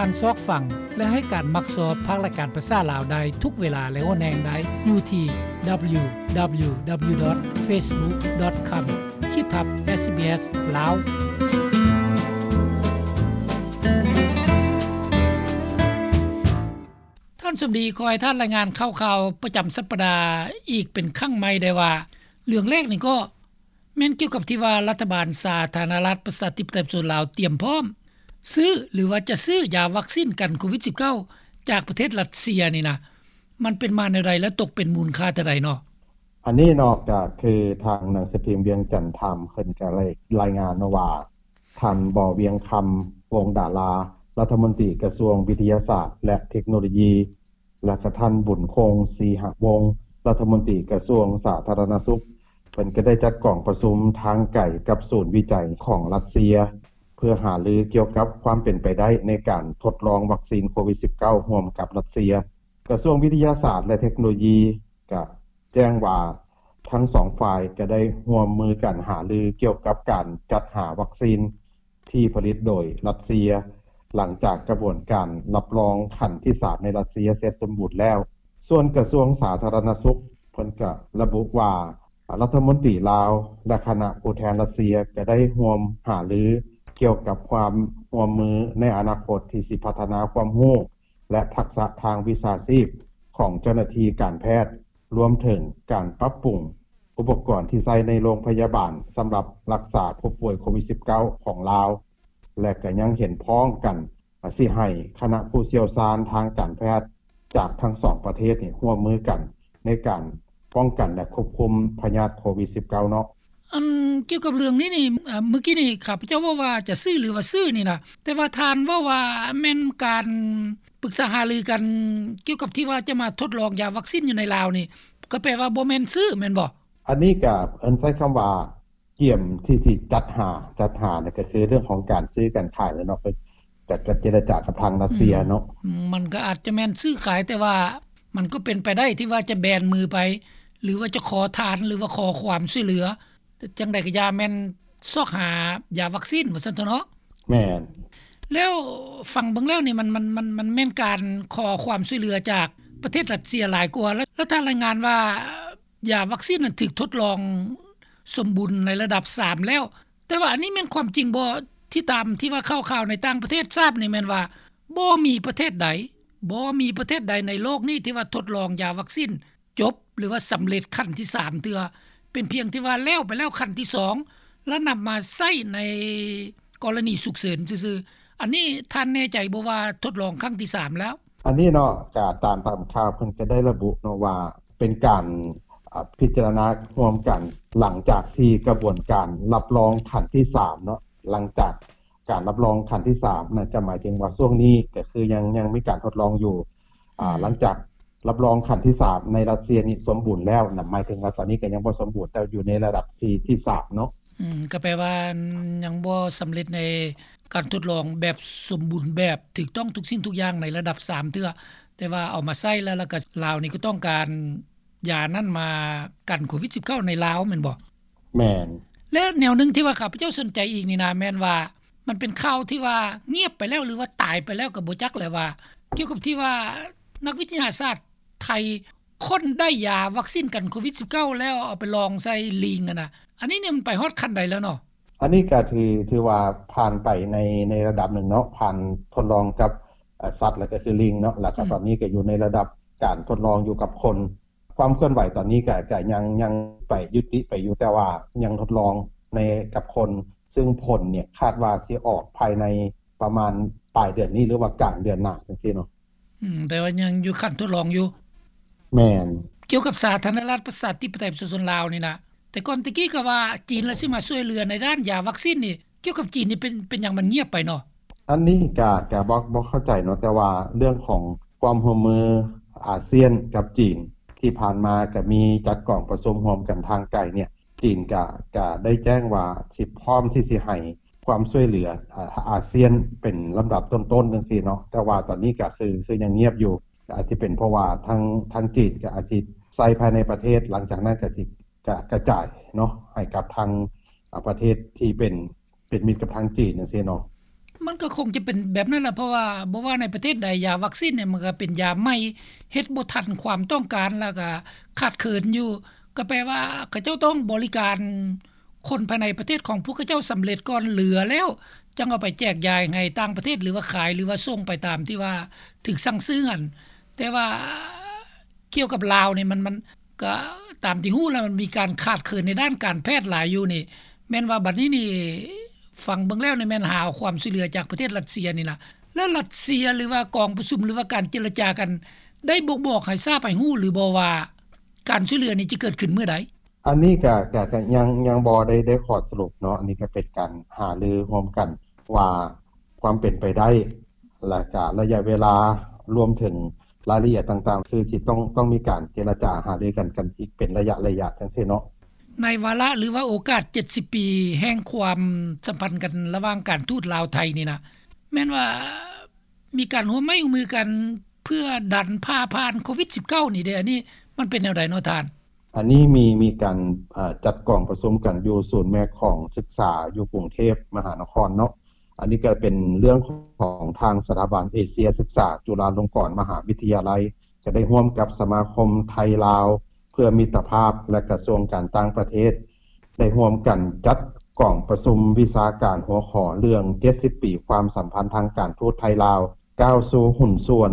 ທ່ານຊອກຟັງ ແລະ ໃຫ້ການມັກຊອບພາກລາຍການພາສາລາວໄດ້ທຸກເວລາ ແລະ ໂອແນງໄດ້ຢູ່ທີ່ www.facebook.com ຂີດທັບ SBS ລາວ. ທ່ານສົມດີ ຂໍໃຫ້ທ່ານລາຍງານຂ່າວໆປະຈຳສັບປະດາອີກເປັນຄັ້ງໃໝ່ໄດ້ວ່າ ເລື່ອງແລກນີ້ກໍ ແມ່ນກ່ຽວກັບທີ່ວ່າລັດຖະບານສາທາລະນະລັດປະຊາທິປະໄຕປະຊາຊົນລາວຕຽມພ້ອມຊື້ ຫຼືວ່າຈະຊື້ຢາວັກຊີນກັນໂຄວິດສິບເກົ້າ ຈາກປະເທດຣັດເຊຍນີ້ນະ ມັນເປັນມາແນວໃດ ແລະ ຕົກເປັນມູນຄ່າເທົ່າໃດເນາະ? ອັນນີ້ເນາະ ກໍຄືທາງໜັງສືພິມວຽງຈັນທາມ ເພິ່ນກໍໄດ້ລາຍງານເນາະວ່າ ທ່ານ ບໍ່ ວຽງຄຳ ວົງດາລາ ລັດຖະມົນຕີກະຊວງວິທະຍາສາດ ແລະ ເທັກໂນໂລຢີ ແລະ ກະທ່ານ ບຸນຄົງ ສີຫະວົງ ລັດຖະມົນຕີກະຊວງສາທາລະນະສຸກ ເພິ່ນກໍໄດ້ຈັດກອງປະຊຸມທາງໄກກັບສູນວິໄຈຂອງຣັດເຊຍ ເພື່ອຫາລືກ່ຽວກັບຄວາມເປັນໄປໄດ້ໃນການທົດລອງວັກຊີນໂຄວິດສິບເກົ້າ ຮ່ວມກັບຣັດເຊຍ. ກະຊວງວິທະຍາສາດ ແລະ ເທັກໂນໂລຢີ ກະແຈ້ງວ່າ ທັງສອງຝ່າຍກະໄດ້ຮ່ວມມືກັນຫາລືກ່ຽວກັບການຈັດຫາວັກຊີນທີ່ຜະລິດໂດຍຣັດເຊຍ ຫຼັງຈາກກະບວນການຮັບຮອງຂັ້ນທີສາມໃນຣັດເຊຍເສັດສົມບູນແລ້ວ. ສ່ວນກະຊວງສາທາລະນະສຸກ ເພິ່ນກະລະບຸວ່າ ລັດຖະມົນຕີລາວ ແລະ ຄະນະຜູ້ແທນຣັດເຊຍກະໄດ້ຮ່ວມຫາລືກ່ຽວກັບຄວາມຮ່ວມມືໃນອະນາຄົດທີ່ຊິພັດທະນາຄວາມຮູ້ ແລະ ທັກສະທາງວິຊາຊີບຂອງເຈົ້າໜ້າທີ່ການແພດ ລວມເຖິງການປັບປຸງອຸປະກອນທີ່ໃຊ້ໃນໂຮງພະຍາບານສຳລັບຮັກສາຜູ້ປ່ວຍໂຄວິດສິບເກົ້າ ຂອງລາວ ແລະ ກໍຍັງເຫັນພ້ອມກັນ ອາ ຊິໃຫ້ຄະນະຜູ້ຊ່ຽວຊານທາງການແພດຈາກທັງສອງປະເທດນີ້ຮ່ວມມືກັນໃນການປ້ອງກັນ ແລະ ຄວບຄຸມພະຍາດໂຄວິດສິບເກົ້າເນາະ. ອັນກ່ຽວກັບເລື່ອງນີ້ນີ້ ອາ ມື້ກີ້ນີ້ຂ້າພະເຈົ້າເວົ້າວ່າຈະຊື້ ຫຼືວ່າຊື້ນີ້ນະ ແຕ່ວ່າທ່ານເວົ້າວ່າແມ່ນການປຶກສາຫາລືກັນ ກ່ຽວກັບທີ່ວ່າຈະມາທົດລອງຢາວັກຊີນຢູ່ໃນລາວນີ້ ກໍແປວ່າບໍ່ແມ່ນຊື້ແມ່ນບໍ່? ອັນນີ້ກໍເອີ້ນໃຊ້ຄຳວ່າກຽມທີ່ ທີ່ຈັດຫາ ຈັດຫານີ້ກໍຄືເລື່ອງຂອງການຊື້ການຂາຍແຫຼະເນາະ ກໍ ກໍເຈລະຈາກັບທາງຣັດເຊຍເນາະ. ອືມ ມັນກໍອາດຈະແມ່ນຊື້ຂາຍ ແຕ່ວ່າມັນກໍເປັນໄປໄດ້ທີ່ວ່າຈະແບນມືໄປ ຫຼືວ່າຈະຂໍທານ ຫຼືວ່າຂໍຄວາມຊ່ວຍເຫຼືອ ຈັ່ງໃດກໍຢ່າ ແມ່ນຊອກຫາຢາວັກຊີນວ່າຊັ້ນເຖາະເນາະ. ແມ່ນ. ແລ້ວຟັງເບິ່ງແລ້ວນີ້ ມັນ ມັນ ມັນ ມັນແມ່ນການຂໍຄວາມຊ່ວຍເຫຼືອຈາກປະເທດຣັດເຊຍຫຼາຍກວ່າ ແລ້ວ ແລ້ວທ່ານລາຍງານວ່າຢາວັກຊີນນັ້ນຖືກທົດລອງສົມບູນໃນລະດັບສາມແລ້ວ ແຕ່ວ່າອັນນີ້ແມ່ນຄວາມຈິງບໍ່? ທີ່ຕາມທີ່ວ່າຂ່າວໆໃນຕ່າງປະເທດຊາບນີ້ແມ່ນວ່າ ບໍ່ມີປະເທດໃດ ບໍ່ມີປະເທດໃດໃນໂລກນີ້ທີ່ວ່າທົດລອງຢາວັກຊີນ ຈົບ ຫຼືວ່າສຳເລັດຂັ້ນທີສາມເທື່ອ ເປັນພຽງທີ່ວ່າແລ້ວໄປແລ້ວຂັ້ນທີສອງ ແລ້ວນຳມາໃຊ້ໃນກໍລະນີສຸກເສີນຊື່ໆ. ອັນນີ້ທ່ານແນ່ໃຈບໍ່ວ່າທົດລອງຄັ້ງທີສາມແລ້ວ? ອັນນີ້ເນາະ ກະຕາມ ຕາມຂ່າວເພິ່ນກະໄດ້ລະບຸເນາະວ່າ ເປັນການ ອາ ພິຈາລະນາຮ່ວມກັນ ຫຼັງຈາກທີ່ກະບວນການຮັບຮອງຂັ້ນທີສາມເນາະ ຫຼັງຈາກການຮັບຮອງຂັ້ນທີສາມນັ້ນ ກະໝາຍເຖິງວ່າຊ່ວງນີ້ກະຄືຍັງ ຍັງມີການທົດລອງຢູ່ ອາ ອືມ ຫຼັງຈາກ ຮັບຮອງຂັ້ນທີສາມໃນຣັດເຊຍນີ້ສົມບູນແລ້ວນະ ໝາຍເຖິງວ່າຕອນນີ້ກໍຍັງບໍ່ສົມບູນ ແຕ່ຢູ່ໃນລະດັບທີ່ ທີສາມເນາະ. ອືມ ກໍແປວ່າຍັງບໍ່ສຳເລັດໃນການທົດລອງແບບສົມບູນແບບ ຖືກຕ້ອງທຸກສິ່ງທຸກຢ່າງໃນລະດັບສາມເທື່ອ ແຕ່ວ່າເອົາມາໃຊ້ແລ້ວ ແລ້ວກໍລາວນີ້ກໍຕ້ອງການຢານັ້ນມາກັນໂຄວິດສິບເກົ້າໃນລາວແມ່ນບໍ່? ແມ່ນ. ແລະແນວໜຶ່ງທີ່ວ່າຂ້າພະເຈົ້າສົນໃຈອີກນີ້ນະ ແມ່ນວ່າ ມັນເປັນຂ່າວທີ່ວ່າງຽບໄປແລ້ວ ຫຼືວ່າຕາຍໄປແລ້ວກໍບໍ່ຈັກແຫຼະວ່າ ກ່ຽວກັບທີ່ວ່ານັກວິທະຍາສາດໄທຄົ້ນໄດ້ຢາວັກຊີນກັນໂຄວິດສິບເກົ້າ ແລ້ວເອົາໄປລອງໃສ່ລີງຫັ້ນນະ ອັນນີ້ນີ້ມັນໄປຮອດຂັ້ນໃດແລ້ວເນາະ? ອັນນີ້ກໍຖື ຖືວ່າຜ່ານໄປໃນ ໃນລະດັບໜຶ່ງເນາະ ຜ່ານທົດລອງກັບ ເອີ ສັດ ແລ້ວກໍຄືລີງເນາະ ແລ້ວກໍ ອືມ ຕອນນີ້ກໍຢູ່ໃນລະດັບການທົດລອງຢູ່ກັບຄົນ. ຄວາມເຄື່ອນໄຫວຕອນນີ້ກໍ ກໍຍັງ ຍັງໄປ ຍຸຕິໄປຢູ່ ແຕ່ວ່າຍັງທົດລອງໃນ ກັບຄົນ ຊຶ່ງຜົນນີ້ຄາດວ່າຊິອອກພາຍໃນປະມານປາຍເດືອນນີ້ ຫຼືວ່າກາງເດືອນໜ້າຈັ່ງຊີ້ເນາະ. ອືມ ແຕ່ວ່າຍັງຢູ່ຂັ້ນທົດລອງຢູ່. ແມ່ນ. ກ່ຽວກັບສາທາລະນະລັດປະຊາທິປະໄຕປະຊາຊົນລາວນີ້ນະ ແຕ່ກ່ອນແຕ່ກີ້ກໍວ່າຈີນລະຊິມາຊ່ວຍເຫຼືອໃນດ້ານຢາວັກຊີນນີ້ ກ່ຽວກັບຈີນນີ້ເປັນ ເປັນຫຍັງມັນງຽບໄປເນາະ? ອັນນີ້ກະ ກະບໍ່ ບໍ່ເຂົ້າໃຈເນາະ ແຕ່ວ່າເລື່ອງຂອງຄວາມຮ່ວມມືອາຊຽນກັບຈີນ ທີ່ຜ່ານມາກະມີຈັດກອງປະຊຸມຮ່ວມກັນທາງໄກເນຍ ຈີນກະ ກະໄດ້ແຈ້ງວ່າຊິພ້ອມທີ່ຊິໃຫ້ຄວາມຊ່ວຍເຫຼືອ ອາ ອາຊຽນເປັນລຳດັບຕົ້ນໆ ຈັ່ງຊີ້ເນາະ ແຕ່ວ່າຕອນນີ້ກະຄື ຄືຍັງງຽບຢູ່ ອາດຈະເປັນເພາະວ່າທາງ ທາງຈີນກະອາດຊິໃຊ້ພາຍໃນປະເທດ ຫຼັງຈາກນັ້ນກະຊິ ກະກະຈາຍເນາະ ໃຫ້ກັບທາງ ອາ ປະເທດທີ່ເປັນ ເປັນມິດກັບທາງຈີນຈັ່ງຊີ້ເນາະ. ມັນກໍຄົງຈະເປັນແບບນັ້ນລະ ເພາະວ່າບໍ່ວ່າໃນປະເທດໃດ ຢາວັກຊີນນີ້ມັນກໍເປັນຢາໃໝ່ ເຮັດບໍ່ທັນຄວາມຕ້ອງການ ແລ້ວກໍຂາດເຂີນຢູ່ ກໍແປວ່າເຂົາເຈົ້າຕ້ອງບໍລິການຄົນພາຍໃນປະເທດຂອງພວກເຂົາເຈົ້າສຳເລັດກ່ອນ ເຫຼືອແລ້ວຈັ່ງເອົາໄປແຈກຢາຍໃຫ້ຕ່າງປະເທດ ຫຼືວ່າຂາຍ ຫຼືວ່າສົ່ງໄປຕາມທີ່ວ່າຖືກສັ່ງຊື້ຫັ້ນ. ແຕ່ວ່າ ກ່ຽວກັບລາວນີ້ ມັນ ມັນກະຕາມທີ່ຮູ້ແລ້ວ ມັນມີການຂາດເຂີນໃນດ້ານການແພດຫຼາຍຢູ່ນີ້ ແມ່ນວ່າບັດນີ້ນີ້ ຟັງເບິ່ງແລ້ວນີ້ແມ່ນຫາເອົາຄວາມຊ່ວຍເຫຼືອຈາກປະເທດຣັດເຊຍນີ້ລະ. ແລ້ວຣັດເຊຍ ຫຼືວ່າກອງປະຊຸມ ຫຼືວ່າການເຈລະຈາກັນ ໄດ້ບົ່ງບອກໃຫ້ຊາບໃຫ້ຮູ້ຫຼືບໍ່ວ່າ ການຊ່ວຍເຫຼືອນີ້ຈະເກີດຂຶ້ນມື້ໃດ? ອັນນີ້ກະ ກະ ກະຍັງ ຍັງບໍ່ໄດ້ ໄດ້ຂໍ້ສະຫຼຸບເນາະ. ອັນນີ້ກະເປັນການຫາລືຮ່ວມກັນວ່າ ຄວາມເປັນໄປໄດ້ ແລະກະໄລຍະເວລາ ລວມເຖິງລາຍລະອຽດຕ່າງໆ ຄືຊິຕ້ອງ ຕ້ອງມີການເຈລະຈາຫາລືກັນ ກັນອີກເປັນໄລຍະໆ ຈັ່ງຊີ້ເນາະ. ໃນວາລະ ຫຼືວ່າໂອກາດເຈັດສິບປີແຫ່ງຄວາມສຳພັນກັນລະຫວ່າງການທູດລາວໄທນີ້ນະ ແມ່ນວ່າມີການຮ່ວມໄມ້ຮ່ວມມືກັນ ເພື່ອດັນຜ່າຜ່ານໂຄວິດສິບເກົ້ານີ້ເດ ອັນນີ້ມັນເປັນແນວໃດເນາະທ່ານ? ອັນນີ້ມີ ມີການ ເອີ ຈັດກອງປະຊຸມກັນຢູ່ສູນແມ່ຂອງສຶກສາຢູ່ກຸງເທບມະຫານະຄອນເນາະ. ອັນນີ້ກໍເປັນເລື່ອງຂອງທາງສະຖາບັນເອເຊຍສຶກສາຈຸລາລົງກອນມະຫາວິທະຍາໄລ ກໍໄດ້ຮ່ວມກັບສະມາຄົມໄທລາວເພື່ອມິດຕະພາບ ແລະ ກະຊວງການຕ່າງປະເທດ ໄດ້ຮ່ວມກັນຈັດກອງປະຊຸມວິຊາການຫົວຂໍ້ເລື່ອງເຈັດສິບປີຄວາມສຳພັນທາງການທູດໄທລາວ ກ້າວສູ່ຫຸ້ນສ່ວນ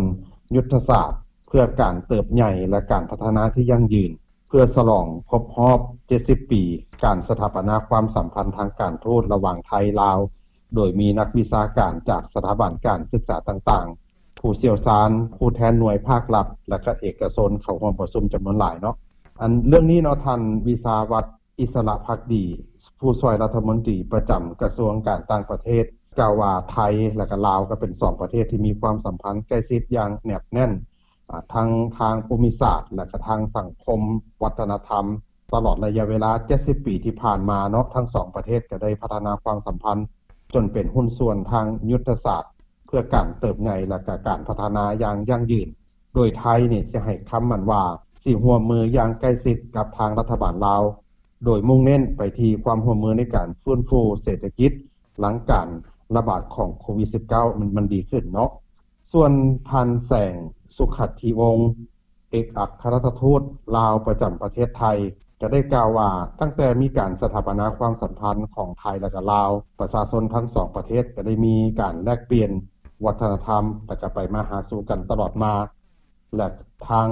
ຍຸດທະສາດເພື່ອການເຕີບໃຫຍ່ ແລະ ການພັດທະນາທີ່ຢັ້ງຢືນ ເພື່ອສະຫຼອງຄົບຮອບເຈັດສິບປີ ການສະຖາປະນາຄວາມສຳພັນທາງການທູດລະຫວ່າງໄທ-ລາວ, ໂດຍມີນັກວິຊາການຈາກສະຖາບັນການສຶກສາຕ່າງໆ, ຜູ້ຊ່ຽວຊານ, ຜູ້ແທນໜ່ວຍພາກລັດ ແລະ ກະເອກະຊົນເຂົ້າຮ່ວມປະຊຸມຈຳນວນຫຼາຍເນາະ. ອັນເລື່ອງນີ້ເນາະ, ທ່ານ ວິຊາວັດ ອິດສະລະພັກດີ ຜູ້ຊ່ວຍລັດຖະມົນຕີປະຈຳກະຊວງການຕ່າງປະເທດ ກ່າວວ່າ ໄທ ແລະ ກະລາວ ກໍເປັນສອງປະເທດທີ່ມີຄວາມສຳພັນໃກ້ຊິດຢ່າງແນບແໜ້ນ ອາ ທັງທາງພູມິສາດ ແລະ ກະທາງສັງຄົມວັດທະນະທຳ. ຕະຫຼອດໄລຍະເວລາເຈັດສິບປີທີ່ຜ່ານມາເນາະ, ທັງສອງປະເທດກໍໄດ້ພັດທະນາຄວາມສຳພັນຈົນເປັນຫຸ້ນສ່ວນທາງຍຸດທະສາດ ເພື່ອການເຕີບໃຫຍ່ ແລະ ກະການພັດທະນາຢ່າງຢັ້ງຢືນ, ໂດຍໄທນີ້ຊິໃຫ້ຄຳໝັ້ນວ່າ ຊິຮ່ວມມືຢ່າງໃກ້ຊິດກັບທາງລັດຖະບານລາວ, ໂດຍມຸ່ງເນັ້ນໄປທີ່ຄວາມຮ່ວມມືໃນການຟື້ນຟູເສດຖະກິດ ຫຼັງການລະບາດຂອງໂຄວິດສິບເກົ້າ ມັນ ມັນດີຂຶ້ນເນາະ. ສ່ວນທ່ານ ແສງ ສຸຂັດທິວົງ ເອກອັກຄະລັດຖະທູດລາວປະຈຳປະເທດໄທ ກໍໄດ້ກ່າວວ່າ ຕັ້ງແຕ່ມີການສະຖາປະນາຄວາມສຳພັນຂອງໄທ ແລະ ກະລາວ, ປະຊາຊົນທັງສອງປະເທດກໍໄດ້ມີການແລກປ່ຽນວັດທະນະທຳ ແລະ ກະໄປມາຫາສູ່ກັນຕະຫຼອດມາ ແລະ ທາງ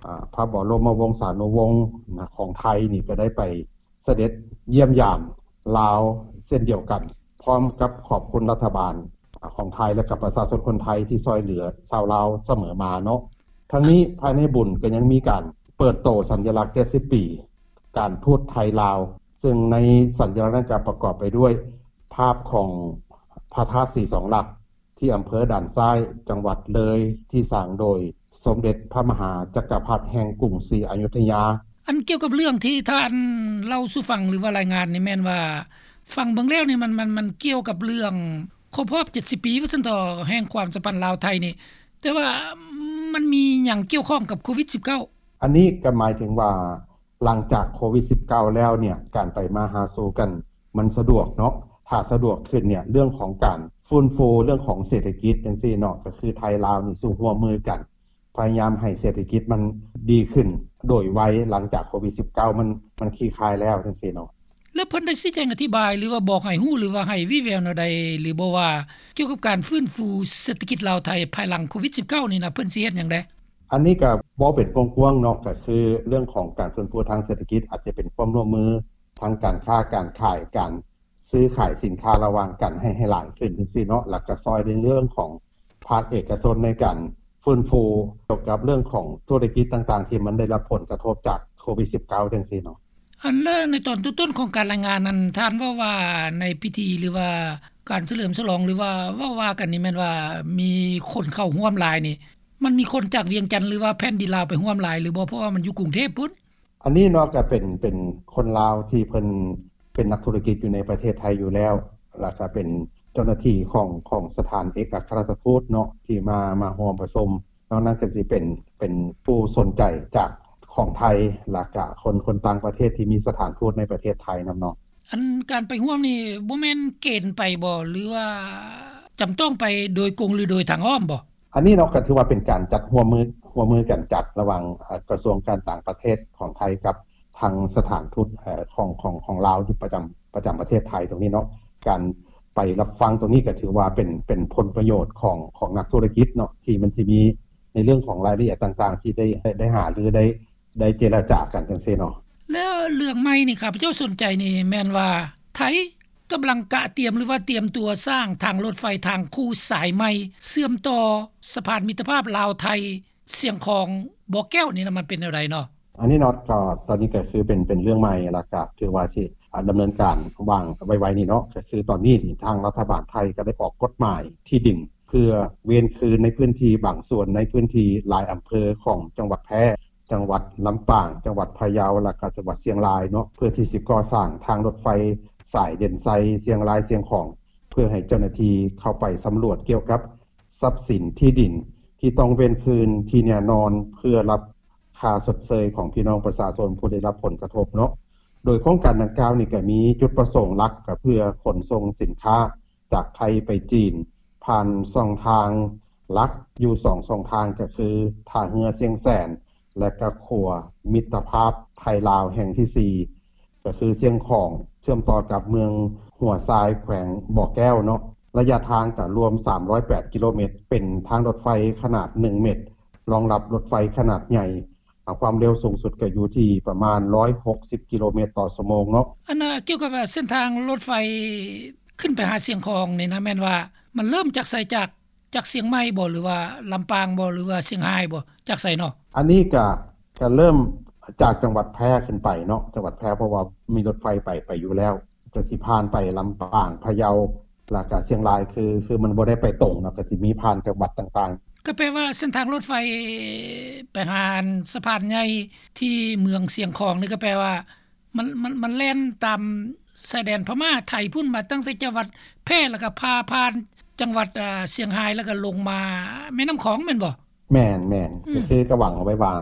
ອາ ພະບໍລົມະວົງສານຸວົງ ນະ ຂອງໄທນີ້ກໍໄດ້ໄປ ສະເດັດຢ້ຽມຢາມລາວເຊັ່ນດຽວກັນ, ພ້ອມກັບຂອບຄຸນລັດຖະບານຂອງໄທ ແລະ ກັບປະຊາຊົນຄົນໄທທີ່ຊ່ວຍເຫຼືອຊາວລາວສະເໝີມາເນາະ. ທັງນີ້ ພາຍໃນບຸນກໍຍັງມີການເປີດໂຕສັນຍະລັກເຈັດສິບປີການທູດໄທລາວ, ເຊິ່ງໃນສັນຍະລັກນັ້ນກໍປະກອບໄປດ້ວຍພາບຂອງພະທາດສີສອງຫຼັກ ທີ່ອຳເພີດ່ານຊ້າຍ ຈັງຫວັດເລີຍ ທີ່ສ້າງໂດຍສົມເດັດພະມະຫາຈັກກະພັດແຫ່ງກຸງສີອະຍຸດທະຍາ. ອັນກ່ຽວກັບເລື່ອງທີ່ທ່ານເລົ່າສູ່ຟັງ ຫຼືວ່າລາຍງານນີ້ ແມ່ນວ່າຟັງເບິ່ງແລ້ວນີ້ ມັນ ມັນ ມັນກ່ຽວກັບເລື່ອງຄົບຮອບເຈັດສິບປີ ວ່າຊັ້ນເຖາະ ແຫ່ງຄວາມສຳພັນລາວ-ໄທນີ້, ແຕ່ວ່າມັນມີຫຍັງກ່ຽວຂ້ອງກັບໂຄວິດສິບເກົ້າ? ອັນນີ້ກໍໝາຍເຖິງວ່າ ຫຼັງຈາກໂຄວິດສິບເກົ້າແລ້ວເນ່ຍ ການໄປມາຫາສູ່ກັນມັນສະດວກເນາະ. ຖ້າສະດວກຂຶ້ນເນ່ຍ ເລື່ອງຂອງການຟື້ນຟູເລື່ອງຂອງເສດຖະກິດຈັ່ງຊີ້ເນາະ ກໍຄືໄທລາວນີ້ຊິຮ່ວມມືກັນ ພະຍາຍາມໃຫ້ເສດຖະກິດມັນດີຂຶ້ນໂດຍໄວ ຫຼັງຈາກໂຄວິດສິບເກົ້າມັນ ມັນຄລີ່ຄາຍແລ້ວຈັ່ງຊີ້ເນາະ. ແລ້ວເພິ່ນໄດ້ຊີ້ແຈງອະທິບາຍ ຫຼືວ່າບອກໃຫ້ຮູ້ ຫຼືວ່າໃຫ້ວີ່ແວວແນວໃດ ຫຼືບໍ່ວ່າກ່ຽວກັບການຟື້ນຟູເສດຖະກິດລາວ-ໄທພາຍຫຼັງໂຄວິດສິບເກົ້ານີ້ນະ ເພິ່ນຊິເຮັດຫຍັງແດ່? ອັນນີ້ກໍເວົ້າເປັນກວ້າງໆເນາະ ກໍຄືເລື່ອງຂອງການຟື້ນຟູທາງເສດຖະກິດ ອາດຈະເປັນຄວາມຮ່ວມມືທາງການຄ້າການຂາຍ ການຊື້ຂາຍສິນຄ້າລະຫວ່າງກັນໃຫ້ ໃຫ້ຫຼາຍຂຶ້ນຈັ່ງຊີ້ເນາະ, ແລ້ວກໍຊ່ອຍໃນເລື່ອງຂອງພາກເອກະຊົນໃນການຟື້ນຟູກ່ຽວກັບເລື່ອງຂອງທຸລະກິດຕ່າງໆ ທີ່ມັນໄດ້ຮັບຜົນກະທົບຈາກໂຄວິດສິບເກົ້າຈັ່ງຊີ້ເນາະ. ອັນ ແລະ ໃນຕອນຕົ້ນໆຂອງການລາຍງານນັ້ນ ທ່ານເວົ້າວ່າໃນພິທີ ຫຼືວ່າການສະເຫຼີມສະຫຼອງ ຫຼືວ່າເວົ້າວ່າກັນນີ້ ແມ່ນວ່າມີຄົນເຂົ້າຮ່ວມຫຼາຍນີ້ ມັນມີຄົນຈາກວຽງຈັນ ຫຼືວ່າແຜ່ນດິນລາວໄປຮ່ວມຫຼາຍຫຼືບໍ່? ເພາະວ່າມັນຢູ່ກຸງເທບພຸ້ນ. ອັນນີ້ເນາະ ກໍເປັນ ເປັນຄົນລາວທີ່ເພິ່ນເປັນນັກທຸລະກິດຢູ່ໃນປະເທດໄທຢູ່ແລ້ວ ແລ້ວກໍເປັນເຈົ້າໜ້າທີ່ຂອງ ຂອງສະຖານເອກອັກຄະລັດຖະທູດເນາະ ທີ່ມາ ມາຮ່ວມປະຊຸມ. ນອກນັ້ນກໍຊິເປັນ ເປັນຜູ້ສົນໃຈຈາກຂອງໄທ ແລ້ວກະຄົນ ຄົນຕ່າງປະເທດທີ່ມີສະຖານທູດໃນປະເທດໄທນຳເນາະ. ອັນການໄປຮ່ວມນີ້ ບໍ່ແມ່ນເກນໄປບໍ່ ຫຼືວ່າ ຈຳຕ້ອງໄປໂດຍກົງ ຫຼື ໂດຍທາງອ້ອມບໍ່? ອັນນີ້ເນາະ ກໍຖືວ່າເປັນການຈັດຮ່ວມມື ຮ່ວມມືກັນຈັດລະຫວ່າງ ເອີ ກະຊວງການຕ່າງປະເທດຂອງໄທກັບທາງສະຖານທູດ ເອີ ຂອງ ຂອງ ຂອງລາວຢູ່ປະຈຳ ປະຈຳປະເທດໄທຕົງນີ້ເນາະ. ການໄປຮັບຟັງຕົງນີ້ກໍຖືວ່າເປັນ ເປັນຜົນປະໂຫຍດຂອງ ຂອງນັກທຸລະກິດເນາະ ທີ່ມັນຊິມີໃນເລື່ອງຂອງລາຍລະອຽດຕ່າງໆ ທີ່ໄດ້ ໄດ້ຫາລື ໄດ້ ໄດ້ເຈລະຈາກັນຈັ່ງຊີ້ເນາະ. ແລ້ວເລື່ອງໃໝ່ນີ້ ຂ້າພະເຈົ້າສົນໃຈນີ້ແມ່ນວ່າ ໄທກຳລັງກະຕຽມ ຫຼືວ່າຕຽມຕົວສ້າງທາງລົດໄຟທາງຄູ່ສາຍໃໝ່ ເຊື່ອມຕໍ່ສະພານມິດຕະພາບລາວ-ໄທ ຊຽງຂອງ ບໍ່ແກ້ວນີ້ນະ ມັນເປັນແນວໃດເນາະ? ອັນນີ້ເນາະ ກໍຕອນນີ້ກໍຄືເປັນ ເປັນເລື່ອງໃໝ່ ແລ້ວກໍຖືວ່າຊິ ອາ ດຳເນີນການວາງໄວໆນີ້ເນາະ. ກໍຄືຕອນນີ້ນີ້ ທາງລັດຖະບານໄທກໍໄດ້ອອກກົດໝາຍທີ່ດິນ ເພື່ອເວນຄືນໃນພື້ນທີ່ບາງສ່ວນ ໃນພື້ນທີ່ຫຼາຍອຳເພີຂອງຈັງຫວັດແພ່, ຈັງຫວັດລຳປາງ, ຈັງຫວັດພະເຍົາ ແລ້ວກໍຈັງຫວັດຊຽງລາຍເນາະ ເພື່ອທີ່ຊິກໍ່ສ້າງທາງລົດໄຟສາຍເດັ່ນໄຊ ຊຽງລາຍ-ຊຽງຂອງ ເພື່ອໃຫ້ເຈົ້າໜ້າທີ່ເຂົ້າໄປສຳຫຼວດກ່ຽວກັບ ຊັບສິນທີ່ດິນທີ່ຕ້ອງເວນຄືນທີ່ແນ່ນອນ ເພື່ອຮັບຄ່າຊົດເຊີຍຂອງພີ່ນ້ອງປະຊາຊົນຜູ້ໄດ້ຮັບຜົນກະທົບເນາະ. ໂດຍໂຄງການດັ່ງກ່າວນີ້ກໍມີຈຸດປະສົງຫຼັກ ກໍເພື່ອຂົນສົ່ງສິນຄ້າຈາກໄທໄປຈີນ ຜ່ານຊ່ອງທາງຫຼັກຢູ່ສອງຊ່ອງທາງ ກໍຄືທ່າເຮືອຊຽງແສນ ແລະ ກໍຂົວມິດຕະພາບໄທລາວແຫ່ງທີສີ່ ກໍຄືຊຽງຂອງ ເຊື່ອມຕໍ່ກັບເມືອງຫົວຊາຍ ແຂວງບໍ່ແກ້ວເນາະ. ໄລຍະທາງກໍລວມສາມຮ້ອຍແປດກິໂລເມດ ເປັນທາງລົດໄຟຂະໜາດໜຶ່ງເມັດ ຮອງຮັບລົດໄຟຂະໜາດໃຫຍ່ ຄວາມເລັວສູງສຸດກໍຢູ່ທີ່ປະມານຮ້ອຍຫົກສິບກິໂລເມດຕໍ່ຊົ່ວໂມງເນາະ. ອັນ ອາ ກ່ຽວກັບເສັ້ນທາງລົດໄຟຂຶ້ນໄປຫາຊຽງຂອງນີ້ນະ ແມ່ນວ່າມັນເລີ່ມຈາກໃສ? ຈາກ ຈາກຊຽງໃໝ່ບໍ່ ຫຼືວ່າລຳປາງບໍ່ ຫຼືວ່າຊຽງຮາຍບໍ່ ຈາກໃສເນາະ? ອັນນີ້ກະ ກະເລີ່ມຈາກຈັງຫວັດແພ່ຂຶ້ນໄປເນາະ ຈັງຫວັດແພ່ ເພາະວ່າມີລົດໄຟໄປ ໄປຢູ່ແລ້ວ ກະຊິຜ່ານໄປລຳປາງ ພະເຍົາ ແລ້ວກະຊຽງລາຍ ຄື ຄືມັນບໍ່ໄດ້ໄປຕົງເນາະ ກະຊິມີຜ່ານຈັງຫວັດຕ່າງໆ. ກໍແປວ່າເສັ້ນທາງລົດໄຟໄປຫາອັນສະພານໃຫຍ່ທີ່ເມືອງຊຽງຂອງນີ້ ກໍແປວ່າ ມັນ ມັນ ມັນແລ່ນຕາມຊາຍແດນພະມ້າໄທພຸ້ນ ມາຕັ້ງແຕ່ຈັງຫວັດແພ່ ແລ້ວກໍຜ່າຜ່ານຈັງຫວັດ ອາ ຊຽງຮາຍ ແລ້ວກໍລົງມາແມ່ນ້ຳຂອງແມ່ນບໍ່? ແມ່ນໆ ອືມ ກໍຄືກໍຫວັງເອົາໄວ້ວ່າ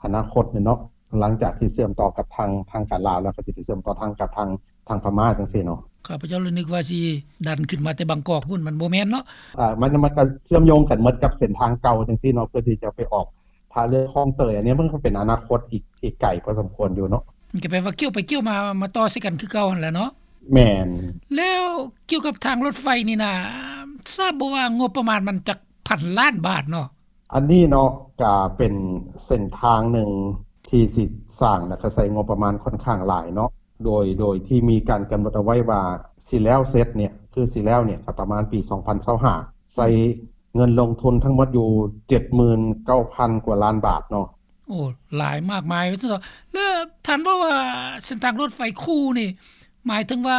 ອະນາຄົດນີ້ເນາະ ຫຼັງຈາກທີ່ເຊື່ອມຕໍ່ກັບທາງ ທາງການລາວແລ້ວ ກໍຊິໄປເຊື່ອມຕໍ່ທາງກັບທາງ ທາງພະມ້າຈັ່ງຊີ້ເນາະ. ຂ້າພະເຈົ້າລະນຶກວ່າຊິດັນຂຶ້ນມາແຕ່ບາງກອກພຸ້ນ ມັນບໍ່ແມ່ນເນາະ. ອາ ມັນ ມັນກໍເຊື່ອມໂຍງກັນໝົດກັບເສັ້ນທາງເກົ່າຈັ່ງຊີ້ເນາະ ເພື່ອທີ່ຈະໄປອອກ ຖ້າເລື່ອງຂອງເຕີຍ ອັນນີ້ມັນກໍເປັນອະນາຄົດອີກ ອີກໄກພໍສົມຄວນຢູ່ເນາະ. ມັນກໍແປວ່າກ່ຽວໄປກ່ຽວມາ ມາຕໍ່ໃສ່ກັນຄືເກົ່າຫັ້ນແຫຼະເນາະ. ແມ່ນ. ແລ້ວກ່ຽວກັບທາງລົດໄຟນີ້ນະ ຊາບບໍ່ວ່າງົບປະມານມັນຈັກພັນລ້ານບາດເນາະ? ອັນນີ້ເນາະ ກະເປັນເສັ້ນທາງໜຶ່ງທີ່ຊິສ້າງ ແລ້ວກະໃຊ້ງົບປະມານຂ້ອນຂ້າງຫຼາຍເນາະ. ໂດຍ ໂດຍທີ່ມີການກຳນົດເອົາໄວ້ວ່າຊິແລ້ວເສັດເນຍ ຄືຊິແລ້ວເນຍ ກະປະມານປີສອງພັນຊາວຫ້າ ໃຊ້ ເງິນລົງທຶນທັງໝົດຢູ່ເຈັດໝື່ນເກົ້າພັນກວ່າລ້ານບາດເນາະ. ໂອ້ ຫຼາຍມາກມາຍວ່າຊັ້ນເຖາະ. ແລ້ວທ່ານເວົ້າວ່າເສັ້ນທາງລົດໄຟຄູ່ນີ້ ໝາຍເຖິງວ່າ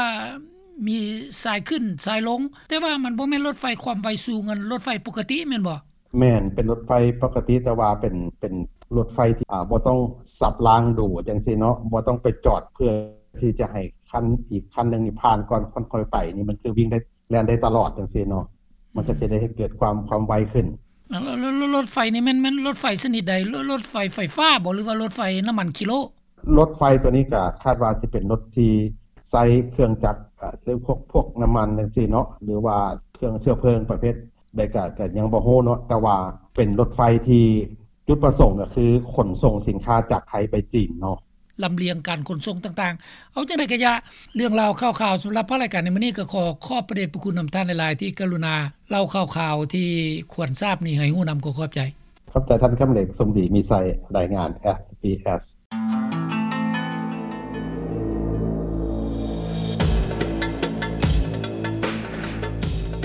ມີສາຍຂຶ້ນສາຍລົງ ແຕ່ວ່າມັນບໍ່ແມ່ນລົດໄຟຄວາມໄວສູງ ອັນລົດໄຟປົກກະຕິແມ່ນບໍ່? ແມ່ນ ເປັນລົດໄຟປົກກະຕິ ແຕ່ວ່າເປັນ ເປັນລົດໄຟທີ່ ອາ ບໍ່ຕ້ອງສັບລາງດູຈັ່ງຊີ້ເນາະ ບໍ່ຕ້ອງໄປຈອດເພື່ອທີ່ຈະໃຫ້ຄັນ ອີກຄັນໜຶ່ງນີ້ຜ່ານກ່ອນ ຄ່ອຍໄປ ນີ້ມັນຄືວິ່ງໄດ້ ແລ່ນໄດ້ຕະຫຼອດຈັ່ງຊີ້ເນາະ ມັນກໍຊິໄດ້ເຮັດເກີດຄວາມ ຄວາມໄວຂຶ້ນ. ແລ້ວ ແລ້ວ ແລ້ວລົດໄຟນີ້ແມ່ນ ແມ່ນລົດໄຟຊະນິດໃດ? ລົດ ລົດໄຟໄຟຟ້າບໍ່ ຫຼືວ່າລົດໄຟນ້ຳມັນຂີ້ໂລ? ລົດໄຟຕົວນີ້ກໍຄາດວ່າຊິເປັນລົດທີ່ໃຊ້ເຄື່ອງຈັກ ເອີ ຫຼືພວກ ພວກນ້ຳມັນຈັ່ງຊີ້ເນາະ ຫຼືວ່າເຄື່ອງເຊື້ອເພີງປະເພດໃດກໍ ກໍຍັງບໍ່ຮູ້ເນາະ ແຕ່ວ່າເປັນລົດໄຟທີ່ ຈຸດປະສົງກໍຄືຂົນສົ່ງສິນຄ້າຈາກໄທໄປຈີນເນາະ. ລຳລຽງການຂົນສົ່ງຕ່າງໆ ເອົາຈັ່ງໃດກະຢ່າ ເລື່ອງລາວຂ່າວຄາວສຳລັບພາກລາຍການໃນມື້ນີ້ ກໍຂໍຂອບພະເດດພະຄຸນນຳທ່ານຫຼາຍໆ ທີ່ກະລຸນາເລົ່າຂ່າວຄາວທີ່ຄວນຊາບນີ້ໃຫ້ຮູ້ນຳ. ຂໍຂອບໃຈ. ຂອບໃຈທ່ານຄຳເລັກ ສົມດີ ມີໄຊ ລາຍງານ ເອສບີເອສ.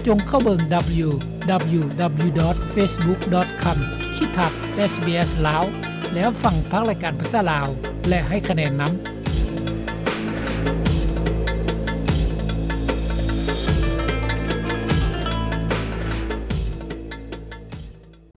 ຈົ່ງເຂົ້າເບິ່ງ ດັບເບິນຢູ ດັບເບິນຢູ ດັບເບິນຢູ ດອດ ເຟສບຸກ ດອດ ຄອມ ຂີດຖາດ ເອສບີເອສ ລາວ ແລ້ວຟັງພາກລາຍການພາສາລາວ ແລະ ໃຫ້ຄະແນນນຳ.